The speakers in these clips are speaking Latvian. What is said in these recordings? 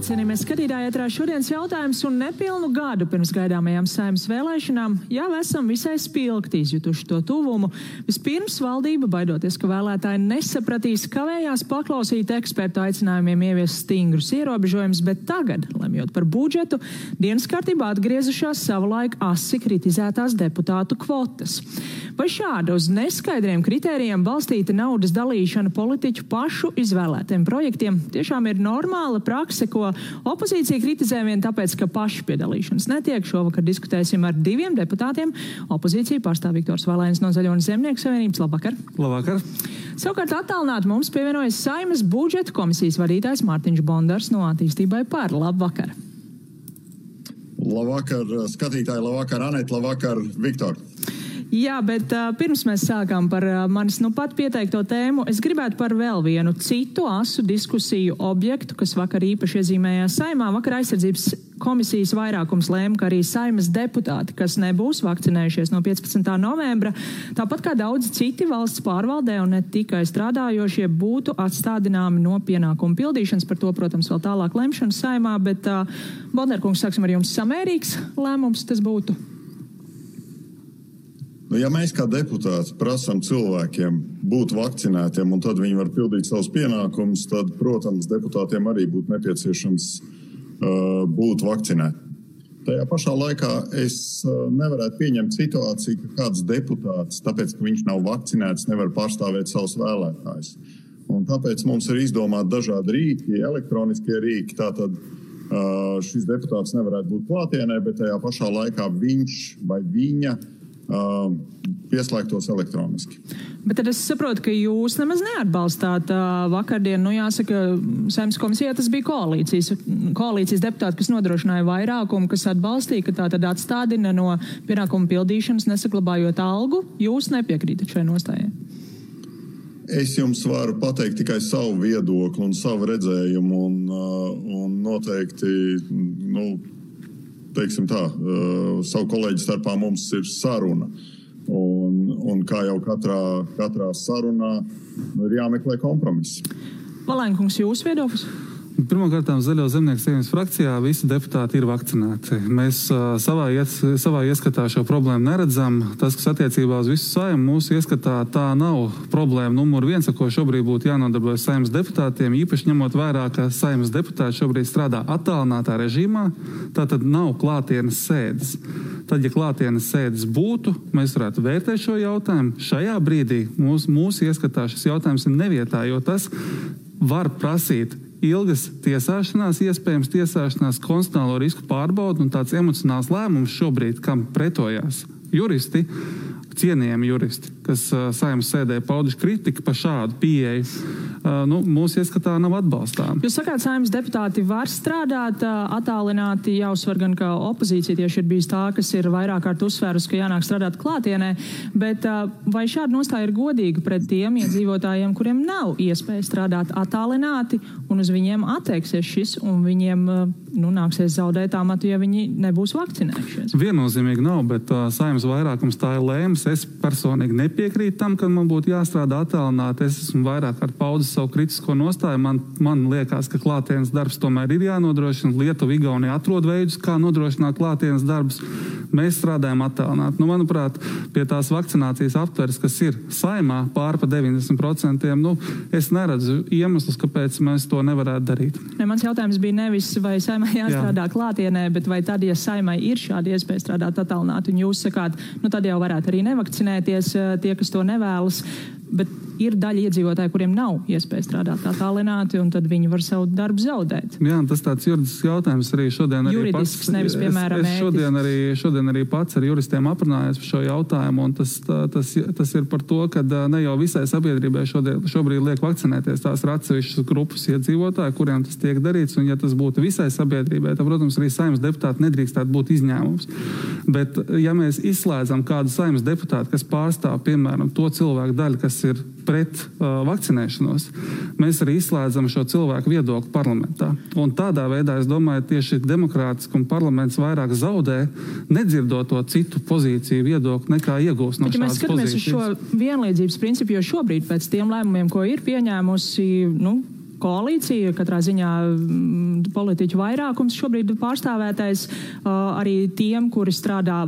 Sveicināti, cienījamies skatītāji, ētrā šodienas jautājums un nepilnu gadu pirms gaidāmajām Saeimas vēlēšanām jau esam visai spilgti izjutuši to tuvumu. Vispirms valdība, baidoties, ka vēlētāji nesapratīs, kavējās paklausīt ekspertu aicinājumiem ieviest stingrus ierobežojumus, bet tagad, lemjot par budžetu, dienas kārtībā atgriezušās savulaik asi kritizētās deputātu kvotas. Vai šāda uz neskaidriem kritērijiem balstīta naudas dalīšana politiķu pašu izvēlētiem projektiem tiešām ir normāla prakse, ko opozīcija kritizē vien tāpēc, ka paši piedalīšanas netiek? Šovakar diskutēsim ar diviem deputātiem. Opozīcija pārstāv Viktors Valēns no Zaļo un Zemnieku savienības. Labvakar! Labvakar! Savukārt attālināti mums pievienojas Saeimas budžeta komisijas vadītājs Mārtiņš Bondars no Attīstībai par. Labvakar! Labvakar, skatītāji, labvakar, Aneta, labvakar, Viktor! Jā, bet pirms mēs sākām par manis pat pieteikto tēmu, es gribētu par vēl vienu citu asu diskusiju objektu, kas vakar īpaši iezīmējās Saeimā. Vakar aizsardzības komisijas vairākums lēma, ka arī Saeimas deputāti, kas nebūs vakcinējušies no 15. novembra, tāpat kā daudzi citi valsts pārvaldē un ne tikai strādājošie, būtu atstādināmi no pienākumu pildīšanas. Par to, protams, vēl tālāk lemšana Saeimā, bet Bondarkungs, sāksim ar jums, samērīgs lēmums tas būtu? Ja mēs kā deputāti prasām cilvēkiem būt vakcinētiem un tad viņi var pildīt savus pienākumus, tad, protams, deputātiem arī būtu nepieciešams būt vakcinētiem. Tajā pašā laikā es nevarētu pieņemt situāciju, ka kāds deputāts, tāpēc, ka viņš nav vakcinēts, nevar pārstāvēt savus vēlētājus. Un tāpēc mums ir izdomāti dažādi rīki, elektroniskie rīki, tātad šis deputāts nevarētu būt klātienē, bet tajā pašā laikā viņš vai viņa pieslēgtos elektroniski. Bet tad es saprotu, ka jūs nemaz neatbalstāt vakardien, jāsaka, Saeimas komisijā tas bija koalīcijas deputāti, kas nodrošināja vairākumu, kas atbalstīja, ka tā tad atstādina no pienākumu pildīšanas, nesaglabājot algu. Jūs nepiekrītat šai nostājai? Es jums varu pateikt tikai savu viedokli un savu redzējumu un noteikti, teiksim tā, savu kolēģi starpā mums ir saruna. Un kā jau katrā sarunā ir jāmeklē kompromiss. Valēnkungs, jūsu viedoklis? Pirmkārt, Zaļo Zemnieku savienības frakcijā visi deputāti ir vakcinēti. Mēs savā ieskatā šo problēmu neredzam. Tas, kas attiecībā uz visu Saeimu, mūsu ieskatā tā nav problēma numur 1, ar ko šobrīd būtu jānodarbojas Saeimas deputātiem, īpaši ņemot vērā, ka Saeimas deputāti šobrīd strādā attālinātā režīmā, tātad nav klātienes sēdes. Tad, ja klātienes sēdes būtu, mēs varētu vērtēt šo jautājumu. Šajā brīdī mūsu ieskatā šis jautājums ir nevietā, jo tas var prasīt ilgas tiesāšanās, iespējams tiesāšanās, konstitucionālo risku pārbaudu un tāds emocionāls lēmums šobrīd, kam pretojās juristi, cienījami juristi, kas Saeimas sēdē pauduši kritiku par šādu pieeju, mūsu ieskatā nav atbalstām. Jūs sakāt, Saeimas deputāti var strādāt attālināti, jāuzsver gan, ka opozīcija tieši ir bijis tā, kas ir vairāk kārt uzsvērus, ka jānāk strādāt klātienē, bet vai šāda nostāja ir godīga pret tiem iedzīvotājiem, kuriem nav iespēja strādāt attālināti un uz viņiem attieksies šis un viņiem nāksies zaudēt amatu, ja viņi nebūs vakcinējušies? Viennozīmīgi nav, bet Saeimas vairākums tā ir lēms. Es personīgi nepiekrītu tam, ka man būtu jāstrādā attālināti. Es esmu vairāk kārt paudis savu kritisko nostāju. Man liekas, ka klātienes darbs tomēr ir jānodrošina. Lietuva, Igaunija atrod veidus, kā nodrošināt klātienes darbus. Mēs strādājam attālināti. Manuprāt, pie tās vakcinācijas aptveres, kas ir Saeimā pār pa 90%, es neredzu iemeslus, kāpēc mēs to nevarētu darīt. Mans jautājums bija nevis, vai Saeimā jāstrādā klātienē, bet vai tad, ja Saeimai ir šāda iespēja strādāt attālināti, un jūs sakāt, tad jau varētu arī nevakcinēties tie, kas to nevēlas, bet ir daļa iedzīvotāji, kuriem nav iespēja strādāt attālināti, un tad viņi var savu darbu zaudēt. Jā, tas tāds juridisks jautājums arī šodien. Juridisks, nevis, piemēram, es šodien arī pats ar juristiem aprunājos par šo jautājumu, un tas ir par to, ka ne jau visai sabiedrībai šobrīd liek vakcinēties. Tās ir atsevišķas grupas iedzīvotāji, kuriem tas tiek darīts, un ja tas būtu visai sabiedrībai, tad, protams, arī Saeimas deputāti nedrīkstētu būt izņēmums. Bet, ja mēs izslēdzam kādu Saeimas deputātu, kas pārstāv, piemēram, to cilvēku daļu, kas ir pret vakcinēšanos, mēs arī izslēdzam šo cilvēku viedokli parlamentā. Un tādā veidā, es domāju, tieši demokrātiski un parlaments vairāk zaudē, nedzirdot to citu pozīciju viedokli, nekā iegūst no šādas pozīcijas. Mēs skatāmies uz šo vienlīdzības principu, jo šobrīd pēc tiem lēmumiem, ko ir pieņēmusi, koalīcija, katrā ziņā politiķu vairākums šobrīd pārstāvētais arī tiem, kuri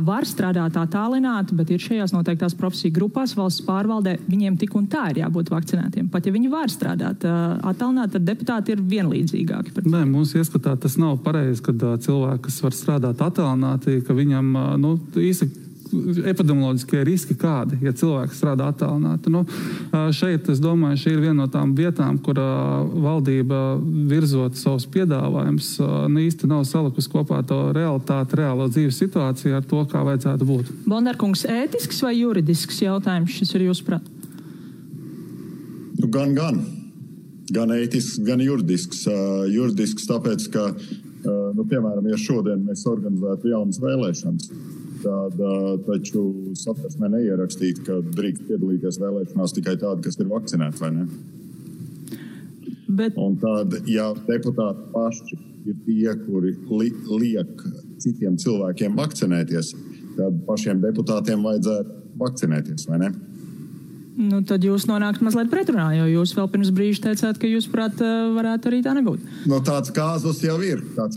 var strādāt attālināti, bet ir šajās noteiktās profesiju grupās valsts pārvaldē, viņiem tik un tā ir jābūt vakcinētiem. Pat ja viņi var strādāt attālināti, tad deputāti ir vienlīdzīgāki. Nē, mums ieskatā tas nav pareizi, kad cilvēki, kas var strādāt attālināti, ka viņam, īsti epidemioloģiskie riski kādi, ja cilvēks strādā attālināti. Šeit, es domāju, šī ir viena no tām vietām, kur valdība virzot savus piedāvājumus, īsti nav salikusi kopā to realitāti, reālo dzīves situāciju ar to, kā vajadzētu būt. Bondarkungs, ētisks vai juridisks jautājums šis ir jūsuprāt? Gan ētisks, gan juridisks. Juridisks tāpēc, ka, piemēram, ja šodien mēs organizētu jaunas vēlēšanas, tad taču satversmē neierakstīt, ka drīkst piedalīties vēlēšanās tikai tādi, kas ir vakcinēti, vai ne? Un tad, ja deputāti paši ir tie, kuri liek citiem cilvēkiem vakcinēties, tad pašiem deputātiem vajadzētu vakcinēties, vai ne? Tad jūs nonākat mazliet pretrunā, jo jūs vēl pirms brīža teicāt, ka jūs, prāt, varētu arī tā nebūt. Tāds kāzus jau ir. Tāds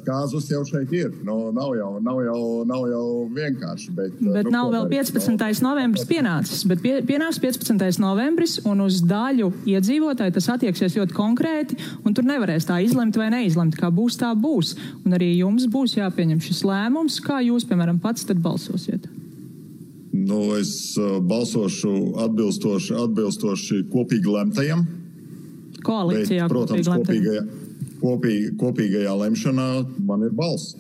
kāzus jau šeit ir. Nav jau vienkārši. Bet nav vēl 15. novembris pienācis. Bet pienāks 15. novembris, un uz daļu iedzīvotāju tas attieksies ļoti konkrēti, un tur nevarēs tā izlemt vai neizlemt. Kā būs, tā būs. Un arī jums būs jāpieņem šis lēmums, kā jūs, piemēram, pats tad balsosiet. Es balsošu atbilstoši kopīgi lemtajam. Koalīcijā bet, protams, kopīgajā lemšanā man ir balss.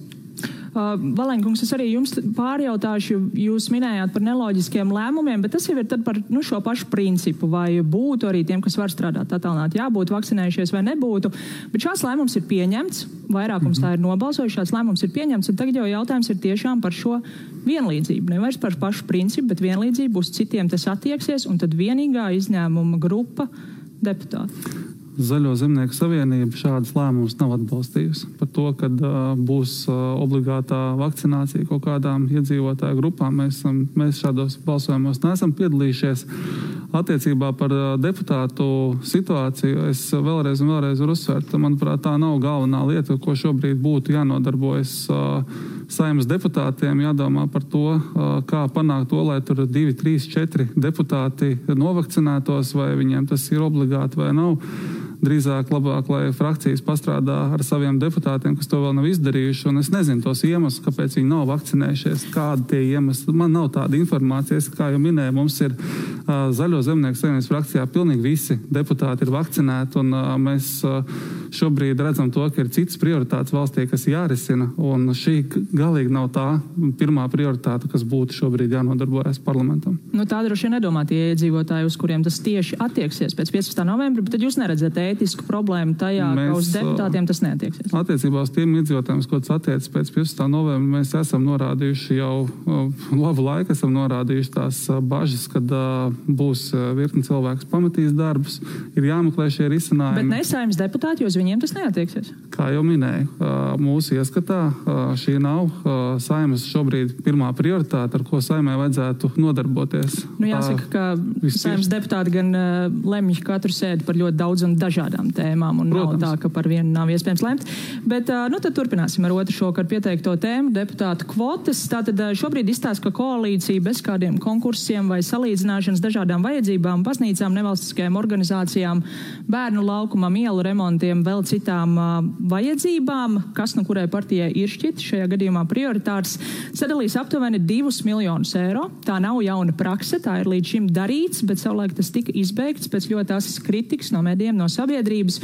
Valēņkungs, es arī jums pārjautāšu, jūs minējāt par neloģiskiem lēmumiem, bet tas jau ir tad par šo pašu principu, vai būtu arī tiem, kas var strādāt attālināti, jābūt vakcinējušies vai nebūtu. Bet šāds lēmums ir pieņemts, vairākums tā ir nobalsojuši, šāds lēmums ir pieņemts, un tagad jau jautājums ir tiešām par šo vienlīdzību. Nevairs par pašu principu, bet vienlīdzību, uz citiem tas attieksies, un tad vienīgā izņēmuma grupa deputāti. Zaļo zemnieku savienība šādas lēmumus nav atbalstījusi. Par to, kad būs obligātā vakcinācija kaut kādām iedzīvotāju grupām, mēs šādos balsojumos neesam piedalījušies. Attiecībā par deputātu situāciju es vēlreiz varu uzsvērt. Manuprāt, tā nav galvenā lieta, ko šobrīd būtu jānodarbojas Saeimas deputātiem, jādomā par to, kā panākt to, lai tur 2, 3, 4 deputāti novakcinētos, vai viņiem tas ir obligāti vai nav. Drīzāk labāk, lai frakcijas pastrādā ar saviem deputātiem, kas to vēl nav izdarījuši, un es nezinu tos iemeslus, kāpēc viņi nav vakcinējušies, kādi tie iemesli. Man nav tāda informācija, kā jau minēju, mums ir Zaļo zemnieku savienības frakcijā pilnīgi visi deputāti ir vakcinēti, un mēs šobrīd redzam to, ka ir citas prioritātes valstī, kas jārisina, un šī galīgi nav tā pirmā prioritāte, kas būtu šobrīd jānodarbojas parlamentam. Tā droši vien nedomā tie iedzīvotāji, uz kuriem tas tieši attieksies pēc 15. novembra, bet tad jūs neredzat ētisku problēmu tajā, ka uz deputātiem tas neatieksies. Attiecībā uz tiem iedzīvotājiem, ko tas attiecas pēc 15. novembra, mēs esam norādījuši jau labu laiku, esam norādījuši tās bažas, kad būs virkni cilvēks pamatīs darbus, ir jāmeklē šie risinājumi. Bet ne Saeimas deputāti, jo uz viņiem tas neatieksies. Kā jau minēju, mūsu ieskatā šī nav Saeimas šobrīd pirmā prioritāte, ar ko Saeimai vajadzētu nodarboties. Jāsaka, ka Saeimas deputāti gan lemj katru sēdi par ļoti daudz un dažādām tēmām, un protams, nav tā, ka par vienu nav iespējams lemt. Bet tad turpināsim ar otru šokar pieteikto tēmu, deputātu kvotas. Tātad šobrīd izstāsta, ka koalīcija bez kādiem konkursiem vai salīdzināšanas dažādām vajadzībām, baznīcām, nevalstiskajām organizācijām, bērnu laukumam, ielu remontiem, vēl citām vajadzībām, kas no kurai partijai ir šķiet šajā gadījumā prioritārs, sadalīs aptuveni 2 miljonus eiro. Tā nav jauna prakse, tā ir līdz šim darīts, bet savulaik tas tika izbeigts pēc ļoti asas kritikas no medijiem, no sabiedrības.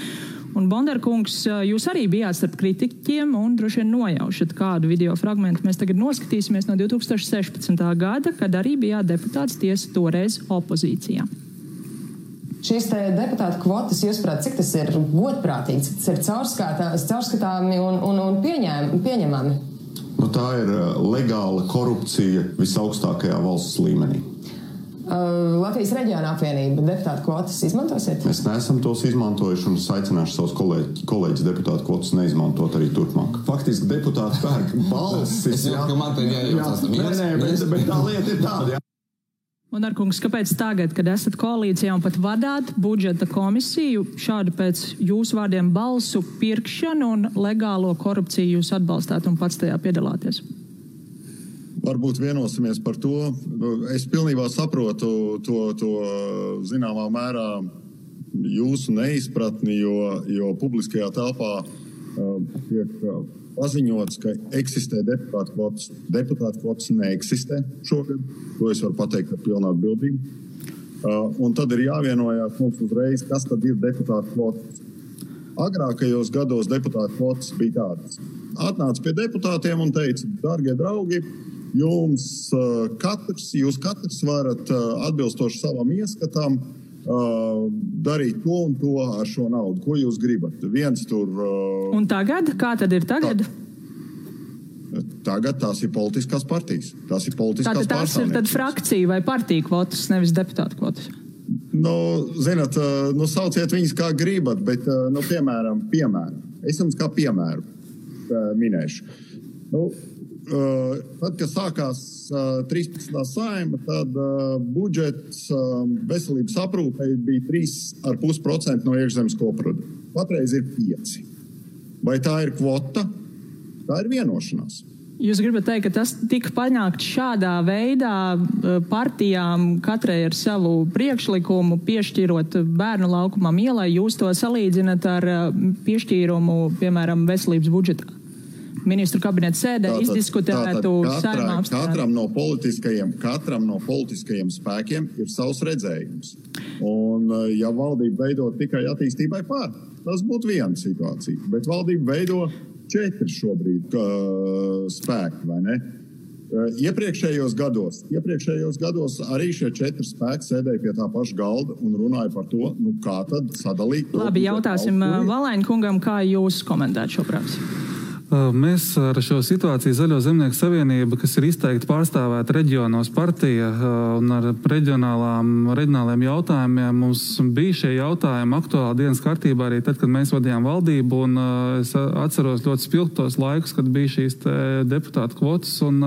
Un Bondarkungs, jūs arī bijāt starp kritiķiem un droši vien nojaušat kādu video fragmentu. Mēs tagad noskatīsimies no 2016. gada, kad arī bijāt deputāts, tiesa toreiz opozīcijā. Šīs te deputātu kvotas, jūsuprāt, cik tas ir godprātīgi, cik tas ir caurskatāmi un pieņemami? Tā ir legāla korupcija visaugstākajā valsts līmenī. Latvijas reģiona apvienība deputātu kvotas izmantosiet? Mēs neesam tos izmantojuši un es aicināšu savus kolēģis deputātu kvotas neizmantot arī turpmāk. Faktiski deputāti pērk balsis. Man te jājautās. Bet tā lieta ir tāda, jā. Un, Arkungs, kāpēc tagad, kad esat koalīcijā un pat vadāt budžeta komisiju, šādu pēc jūsu vārdiem balsu pirkšanu un legālo korupciju jūs atbalstāt un pats tajā piedalāties? Varbūt vienosimies par to. Es pilnībā saprotu to zināmā mērā jūsu neizpratni, jo publiskajā telpā tiek paziņots, ka eksistē deputātu kvotas. Deputātu kvotas neeksistē šogad. To es varu pateikt ar pilnu atbildību. Un tad ir jāvienojās mums uzreiz, kas tad ir deputātu kvotas. Agrākajos gados deputātu kvotas bija tādas. Atnāca pie deputātiem un teica, dārgie draugi, jūs katrs varat atbilstoši savam ieskatam darīt to un to ar šo naudu. Ko jūs gribat? Un tagad? Kā tad ir tagad? Tagad tās ir politiskās partijas. Tās ir politiskās pārstāvniecības. Tās ir tad frakcija vai partija kvotas, nevis deputātu kvotas? Zināt, sauciet viņas kā gribat, bet, piemēram. Es jums kā piemēru minēšu. Tad, kad sākās 13. saima, tad budžets veselības aprūpei bija 3,5% no iekšzemes koprodukta. Patreiz ir 5%. Vai tā ir kvota? Tā ir vienošanās. Jūs gribat teikt, ka tas tika panākts šādā veidā partijām katrai ar savu priekšlikumu, piešķirot bērnu laukumam ielai, jūs to salīdzinat ar piešķīrumu, piemēram, veselības budžetā? Ministru kabineta sēdē izdiskutētu saimā apstrādi. Katram no politiskajiem spēkiem ir savs redzējums. Un, ja valdība veido tikai attīstībai pār, tas būtu viena situācija. Bet valdība veido 4 šobrīd spēki, vai ne? Iepriekšējos gados arī šie 4 spēki sēdēja pie tā paša galda un runāja par to, kā tad sadalīt. Labi, jautāsim Valēņa kungam, kā jūs komentētu šo praksi? Mēs ar šo situāciju Zaļo zemnieku savienība, kas ir izteikti pārstāvēta reģionos partija un ar reģionāliem jautājumiem, mums bija šie jautājumi aktuāli dienas kārtībā arī tad, kad mēs vadījām valdību, un es atceros ļoti spilgtos laikus, kad bija šīs deputātu kvotas, un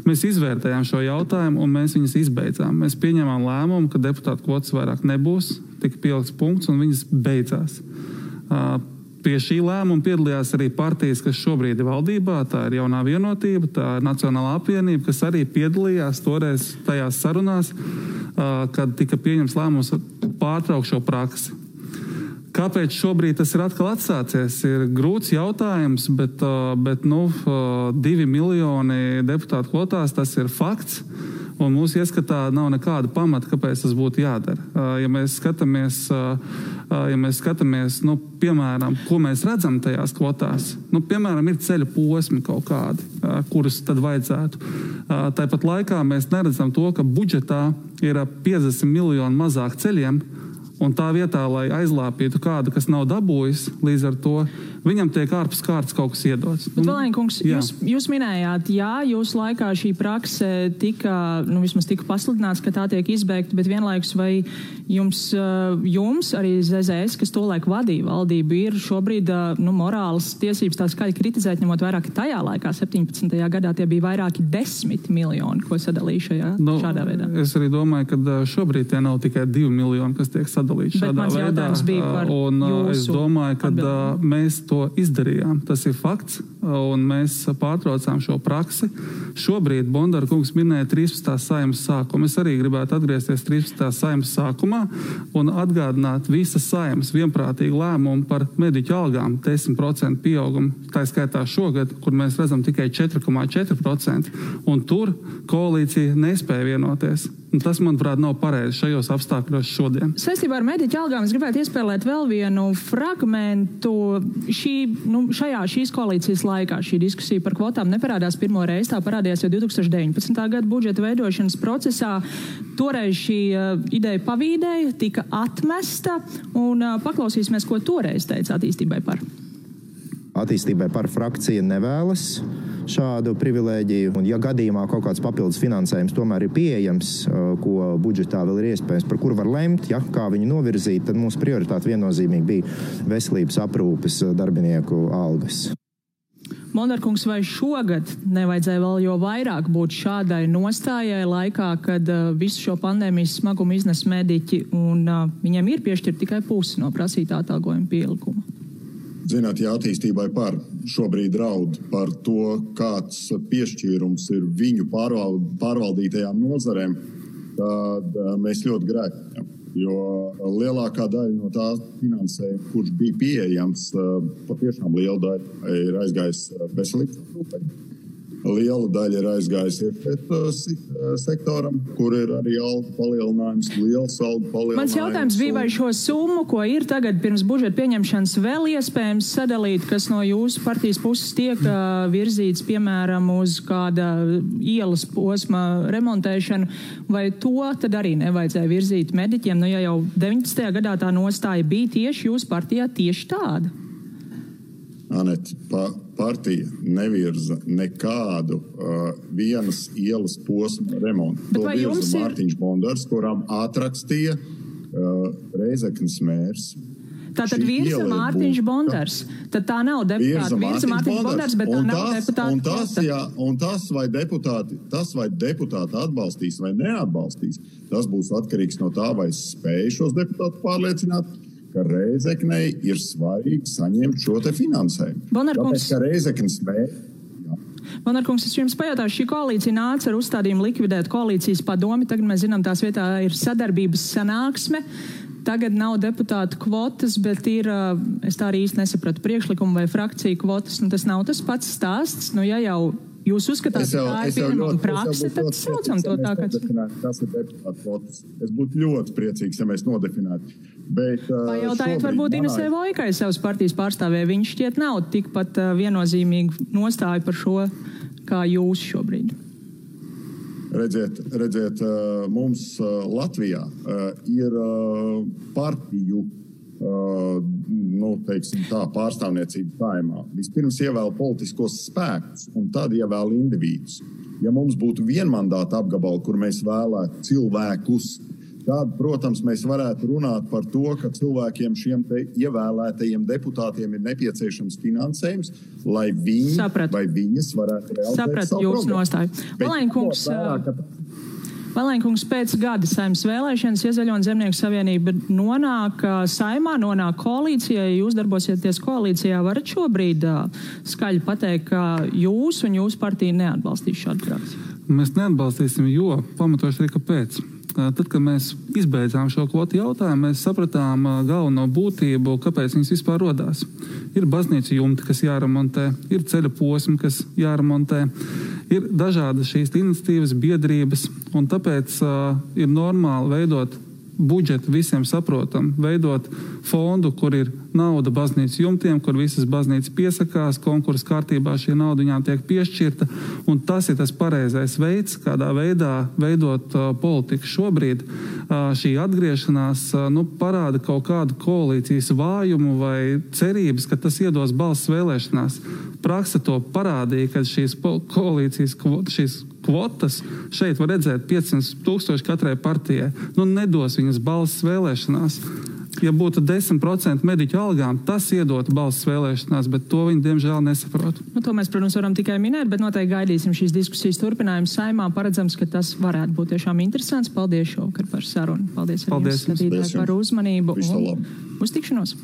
mēs izvērtējām šo jautājumu, un mēs viņas izbeidzām. Mēs pieņēmām lēmumu, ka deputātu kvotas vairāk nebūs, tika pielikts punkts, un viņas beidzās. Pie šī lēmuma piedalījās arī partijas, kas šobrīd ir valdībā, tā ir Jaunā vienotība, tā ir Nacionālā apvienība, kas arī piedalījās toreiz tajās sarunās, kad tika pieņems lēmums pārtraukt šo praksi. Kāpēc šobrīd tas ir atkal atsācies? Ir grūts jautājums, bet 2 miljoni deputātu kvotās, tas ir fakts. Un mūsu ieskatā nav nekāda pamata, kāpēc tas būtu jādara. Ja mēs skatāmies, piemēram, ko mēs redzam tajās kvotās, piemēram, ir ceļa posmi kaut kādi, kurus tad vajadzētu. Tāpat laikā mēs neredzam to, ka budžetā ir 50 miljoni mazāk ceļiem, un tā vietā, lai aizlāpītu kādu, kas nav dabūjis, līdz ar to viņam tiek ārpus kārtas kaut kas iedots. Bet, Valēņa kungs, jūs minējāt, jūsu laikā šī prakse vismaz tika pasludināts, ka tā tiek izbeigta, bet vienlaikus vai jums arī ZZS, kas tolaik vadīja valdību, ir šobrīd morālas tiesības tā skaļi kritizēt, ņemot vairāk tajā laikā, 17. gadā, tie bija vairāki 10 miljoni, ko sadalīja šādā veidā. Es arī domāju, ka šobrīd tie nav tikai 2 miljoni, kas tiek sadalīti šādā veidā. Un es domāju, ka mēs to izdarījām. Tas ir fakts, un mēs pārtraucām šo praksi. Šobrīd Bondara kungs minēja 13. saimas sākumu. Es arī gribētu atgriezties 13. saimas sākumā un atgādināt visas saimas vienprātīgu lēmumu par mediķu algām 10% pieaugumu. Tā skaitā šogad, kur mēs redzam tikai 4,4%, un tur koalīcija nespēja vienoties. Un tas, manuprāt, nav pareizi šajos apstākļos šodien. Saistībā ar mediķu algām es gribētu iespēlēt vēl vienu fragmentu. Šīs koalīcijas laikā šī diskusija par kvotām neparādās pirmo reizi, tā parādījās jau 2019. Gada budžeta veidošanas procesā. Toreiz šī ideja pavīdēja, tika atmesta, un paklausīsimies, ko toreiz teica attīstībai par. Attīstībai par frakcija nevēlas šādu privilēģiju, un ja gadījumā kaut kāds papildus finansējums tomēr ir pieejams, ko budžetā vēl ir iespējams, par kur var lemt, kā viņu novirzīt, tad mūsu prioritāte viennozīmīgi bija veselības aprūpes darbinieku algas. Bondarkungs, vai šogad nevajadzēja vēl jo vairāk būt šādai nostājai laikā, kad visu šo pandēmijas smagumu iznes mediķi un viņiem ir piešķirt tikai pusi no prasītā atalgojuma pielikuma? Zināt, ja attīstībai šobrīd draud par to, kāds piešķīrums ir viņu pārvaldītajām nozarēm, tad mēs ļoti grēkojam. Jo lielākā daļa no tā finansējuma, kurš bija pieejams, patiešām liela daļa ir aizgājis veselības aprūpei. Liela daļa ir aizgājusi sektoram, kur ir arī algu palielinājums, liels algu palielinājums. Mans jautājums bija, vai šo summu, ko ir tagad pirms budžeta pieņemšanas, vēl iespējams sadalīt, kas no jūsu partijas puses tiek virzīts, piemēram, uz kāda ielas posma remontēšanu, vai to tad arī nevajadzēja virzīt mediķiem? Nu, ja jau 19. gadā tā nostāja bija tieši jūsu partijā tieši tāda. Anet, partija nevirza nekādu vienas ielas posma remontu. To virza Mārtiņš Bondars, kurām atrakstīja Reizeknes mērs. Tātad virza Mārtiņš Bondars. Tad tā nav deputāta. Virza Mārtiņš Bondars, bet tā nav deputāta. Un tas, vai deputāti atbalstīs vai neatbalstīs, tas būs atkarīgs no tā, vai spēj šos deputātus pārliecināt, ka Reizeknei ir svarīgi saņemt šo te finansējumu. Tāpēc, ka Reizeknes Bondarkungs, es jums pajautāšu, šī koalīcija nāca ar uzstādījumu likvidēt koalīcijas padomi. Tagad mēs zinām, tās vietā ir sadarbības sanāksme. Tagad nav deputātu kvotas, bet ir, es tā arī īsti nesapratu, priekšlikumu vai frakciju kvotas. Un tas nav tas pats stāsts. Nu, ja jau jūs uzskatāt, ka tā ir pieņemama prakse, tad saucam to tā, ka... Tas ir deputātu kvotas. Es būtu ļoti priecīgs, ja mēs nodefinētu. Pajautājiet varbūt Inesē Vojkai savas partijas pārstāvē. Viņš šķiet nav tikpat viennozīmīgi nostāju par šo, kā jūs šobrīd. Redziet, mums Latvijā ir partiju pārstāvniecība saimā. Vispirms ievēl politiskos spēkus un tad ievēl individus. Ja mums būtu vienmandāta apgabali, kur mēs vēlētu cilvēkus, tad, protams, mēs varētu runāt par to, ka cilvēkiem šiem te ievēlētajiem deputātiem ir nepieciešams finansējums, lai viņi vai viņas varētu realizēt savu programmu. Valēnkungs, pēc gada saimnes vēlēšanas Iezaļo un Zemnieku savienība nonāk saimā, nonāk koalīcijā. Ja jūs darbosieties koalīcijā, varat šobrīd skaļi pateikt, ka jūs un jūsu partija neatbalstīs šādu praksi? Mēs neatbalstīsim, jo pamatoši arī kāpēc. Tad, kad mēs izbeidzām šo kvotu jautājumu, mēs sapratām galveno būtību, kāpēc viņas vispār rodās. Ir baznīcu jumti, kas jāremontē, ir ceļa posmi, kas jāremontē, ir dažādas šīs iniciatīvas, biedrības, un tāpēc ir normāli veidot budžetu visiem saprotam, veidot fondu, kur ir nauda baznīcas jumtiem, kur visas baznīcas piesakās, konkursa kārtībā šī nauda viņām tiek piešķirta, un tas ir tas pareizais veids, kādā veidā veidot politiku šobrīd. Šī atgriešanās parāda kaut kādu koalīcijas vājumu vai cerības, ka tas iedos balss vēlēšanās. Praksa to parādīja, kad šīs koalīcijas šīs kvotas šeit var redzēt 500,000 katrai partijai. Nedos viņas balss vēlēšanās. Ja būtu 10% mediķu algām, tas iedotu balss vēlēšanās, bet to viņi diemžēl nesaprot. To mēs, protams, varam tikai minēt, bet noteikti gaidīsim šīs diskusijas turpinājumu saimā. Paredzams, ka tas varētu būt tiešām interesants. Paldies šovakar par sarunu. Paldies arī jums, skatītāji, par uzmanību. Un uz tikšanos.